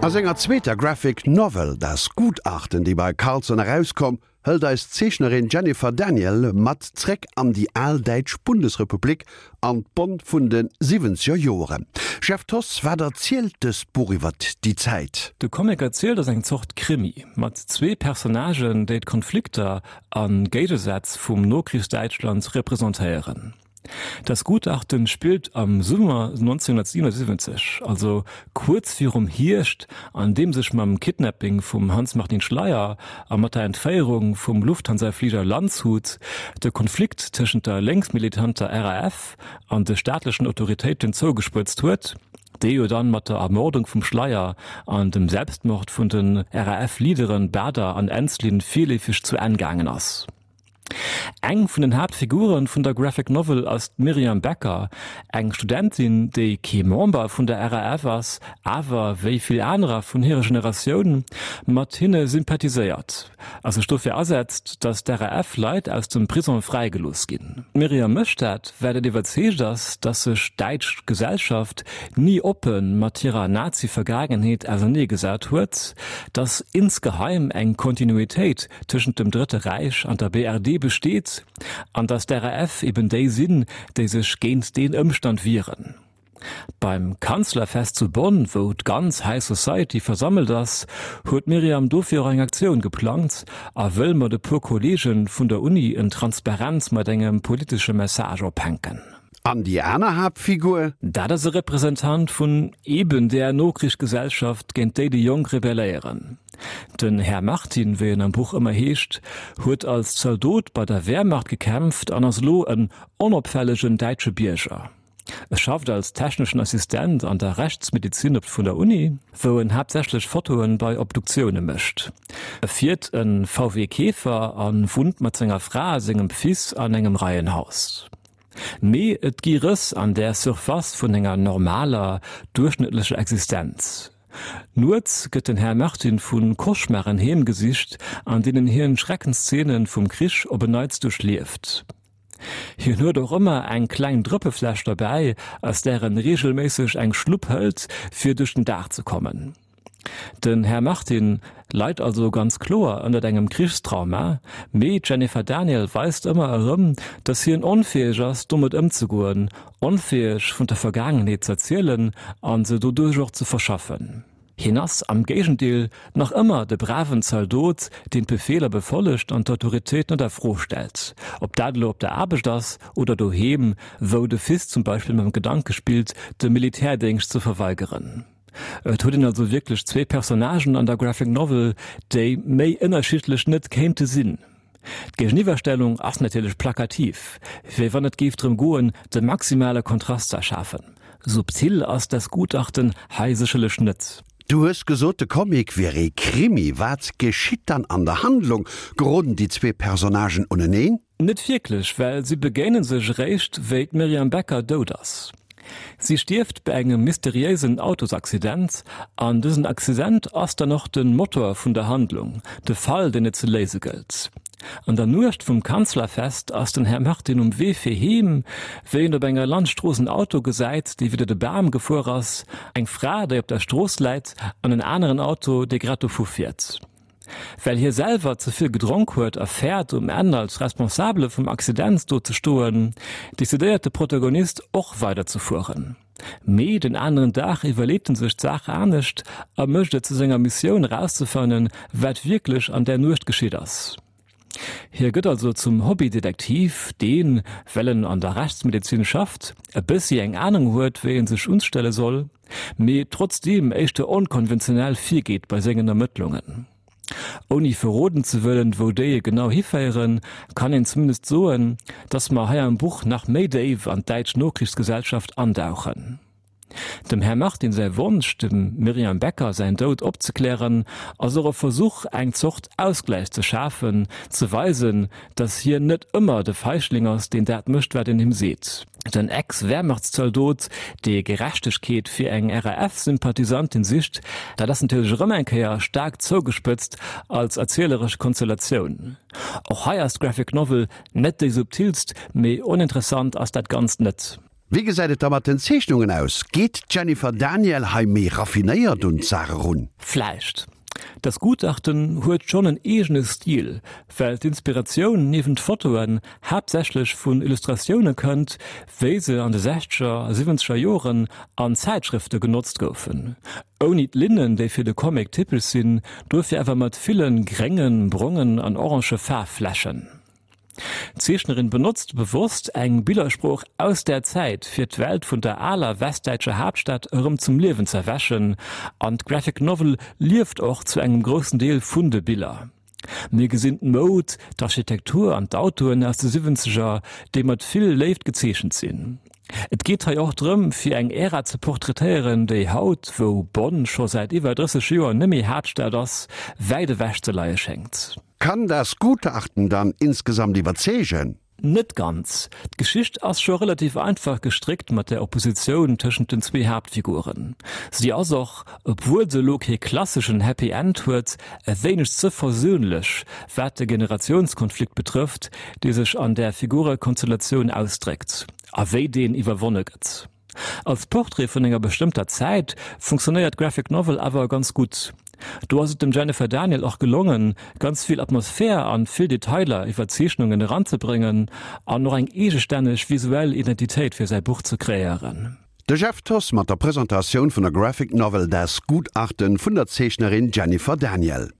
A senger zweeter Graphic Novel Das Gutachten, déi bei Carlsen erauskomm, hëlt eis d'Zeechnerin Jennifer Daniel mat zréck an déi al däitsch Bundesrepublik an d'Bonn vun de siwwenzeger Joeren. Jeff Thoss, wat erzielt dëst Buch iwwert déi Zäit? De Comic erzielt ass eng Zort Krimi mat zwee Personnagen, déi d'Konflikter a Géigesätz vum Nokrichsdäitschland representéieren. Das Gutachten spillt am Summer 1977, also kuerz virum Hierscht, an deem sech mam Kidnapping vum Hanns-Martin Schleyer a mat der Entféierung vum Lufthansa-Fliger Landshut de Konflikt tëschent der lénksmilitanter RAF an de staatlechen Autoritéiten zougespëtzt huet, dee jo dann mat der Ermordung vum Schleyer an dem Selbstmord vun den RAF-Leaderen Baader an Ensslin virleefeg zu Enn gaangen ass. Eng vun den Haaptfiguren vun der Graphic Novel ass d'Myriam Becker, eng Studentin, déi kee Member vun der RAF ass, awer, wéi vill anerer vun hirer Generatioun, mat hinne sympathiséiert a sech dofir asetzt, datt d'RAF-Leit aus dem Prisong fräigelooss ginn. D'Myriam mécht dat, well et iwwerzeegt ass, datt sech d'däitsch Gesellschaft ni oppe mat hirer Nazi-Vergaangenheet auserneegesat huet, datt insgeheim eng Kontinuitéit tëschent dem Drëtte Räich an der BRD besteet an datt d'RAF eben déi sinn, déi sech géint deen Ëmstand wieren. Beim Kanzlerfest zu Bonn, wou d'ganz High Society versammelt ass, huet d'Myriam dofir och eng Aktioun geplangt a wëll mat e puer Kolleege vun der Uni en Transparent mat engem politesche Message ophänken. An déi aner Haaptfigur? Dat ass e Representant vun eben där Nokrichsgesellschaft, géint déi déi Jonk rebelléieren. Den Här Martin, wéi en am Buch ëmmer heescht, huet als Zaldot bei der Wehrmacht gekämpft an ass elo en onopfällegen däitsche Bierger. E schafft als techneschen Assistent an der Rechtsmedizin op vun der Uni, wou en haaptsächlech Fotoen bei Obduktioune mécht. E fiert e VW Käfer a wunnt mat senger Fra a sengem Fils an engem Reihenhaus. Mee et gi Rëss an där Surface vun enger normaler, duerchschnëttlecher Existenz. Nuets gëtt den Här Martin vu Cauchemaren heemgesicht, an deenen hien Schreckenszenen vum Krich op en Neits duerchlieft. Hien huet och ëmmer eng kleng Drëppefläsch derbäi, aus där en reegelméisseg eng Schlupp hëlt, fir duerch den Dag ze kommen. Den Här Martin leit also ganz kloer ënnert engem Krichstrauma, mee d'Jennifer Daniel weist ëmmer erëm, datt hien onfäeg ass, domat ëmzegoen, onfäeg vun der Vergaangenheet z'erzielen a se doduerch och ze verschaffen. Hien ass am Géigendeel nach ëmmer de braven Zaldot, deen d'Befeeler befollegt an d'Autoritéit net a Fro stellt, ob dat elo op der Aarbecht ass oder doheem, wou de Fils zum Beispill mam Gedanke spillt, de Militärdéngscht ze verweigeren. Et huet een also wierklech zwee Personnagen an der Graphic Novel, déi méi ënnerschiddlech net kéinte sinn. D'Géigeniwwerstellung ass natierlech plakativ, wéi wann et géif drëm goen, de maximale Kontrast z'erschafen. Subtil ass das Gutachten hei sécherlech net. Du hues gesot, de Comic wier ee Krimi. Wat geschitt dann an der Handlung? Geroden déi zwee Personnagen uneneen? Net wierklech, well si begéine sech eréischt, wéi d'Myriam Becker dout ass. Si stierft bei engem mysteriéisen Autosaccident an dësen Accident ass dann och de Motor vun der Handlung, de Fall, deen et ze léise gëllt. An der Nuecht vum Kanzlerfest ass den Här Martin um Wee fir heem, wéi en op enger Landstrooss en Auto gesäit, dee widder de Bam gefuer ass, eng Fra, déi op der Strooss läit an en aneren Auto, dee grad dovu fiert. Well hie selwer ze vill gedronk huet a fäert, um Enn als Responsabele vum Accident do ze stoen, decidéiert de Protagonist och weider ze fueren. Mee den aneren Dag iwwerleet en sech d'Saach anescht a mécht et zu senger Missioun erauszefannen, wat wierklech an där Nuecht geschitt ass. Hie gëtt also zum Hobbydetektiv, deen, well en an der Rechtsmedezin schafft, e bëssi eng Anung huet, wéi en sech unstelle soll. Mee trotzdeem éischter onkonventionell virgeet bei sengen Ermëttlungen. Ouni verroden ze wëllen, wou déi genau hiféieren, kann een zumindest soen, dass mer hei am Buch nach méi déif an d'däitsch Nokrichsgesellschaft andauchen. Dem Här Martin säi Wonsch, dem Myriam Becker säin Doud opzeklären, ass och e Versuch, eng Zort Ausgläich ze schafen, ze weisen, dass hien net ëmmer de Feigling ass, deen dat mécht, wat een him seet. Den Ex-Wehrmachtszaldot, dee Gerechtegkeet fir eng RAF-Sympathisantin sicht, dat ass natierlech erëm eng Kéier staark zougespëtzt als erzieleresch Konstellatioun. Och hei ass d'Graphic Novel net déi subtilst, mee oninteressant ass dat Ganzt net. Wéi gesäit et da mat den Zeechnungen aus? Geet d'Jennifer Daniel hei méi raffinéiert un d'Saach erun? Vläicht. Das Gutachten huet schonn en eegene Stil, well d'Inspiratioun niewent Fotoen haaptsächlech vun Illustratioune kënnt, wéi se an de sechzeger a siwwenzeger Joren an Zäitschrëfte genotzt goufen. Ouni d'Linnen, déi fir de Comic typesch sinn, dofir awer mat ville gréngen, brongen an orange Faarfflächen. D'Zeechnerin benotzt bewosst eng Billersprooch aus där Zäit, fir d'Welt vun der aler westdäitscher Haaptstad erëm zum Liewen z'erwächen, an d'Graphic Novel lieft och zu engem groussen Deel vun de Biller. Mir gesinn d'Moud, d'Architektur an d'Autoen aus de Siwwenzeger, déi mat vill Léift gezeechent sinn. Et geet hei och drëm, fir eng Ära ze portraitéieren, déi haut, wou Bonn scho säit iwwer 30 Joer neméi Haaptstad ass, wäit ewech ze leie schéngt. Kann das Gutachten dann insgesamt iwwerzeegen? Net ganz. D'Geschicht ass scho relativ einfach gestréckt mat der Oppositioun tëschent den zwee Haaptfiguren. Si ass och, obwuel se elo kee klasseschen Happy End huet, e wéineg ze versöhnlech, wat de Generatiounskonflikt betrëfft, dee sech an där Figurekonstellatioun ausdréckt a wéi deen iwwerwonne gëtt. Als Portrait vun enger bestëmmter Zäit funktionéiert d'Graphic Novel awer ganz gutt. Do ass et dem Jennifer Daniel och gelongen, ganz vill Atmosphär an vill Detailer iwwer d'Zeechnungen eranzebréngen an och eng eegestänneg visuell Identitéit fir säi Buch ze kreéieren. De Jeff Thoss mat der Presentatioun vun der Graphic Novel Das Gutachten vun der Zeechnerin Jennifer Daniel.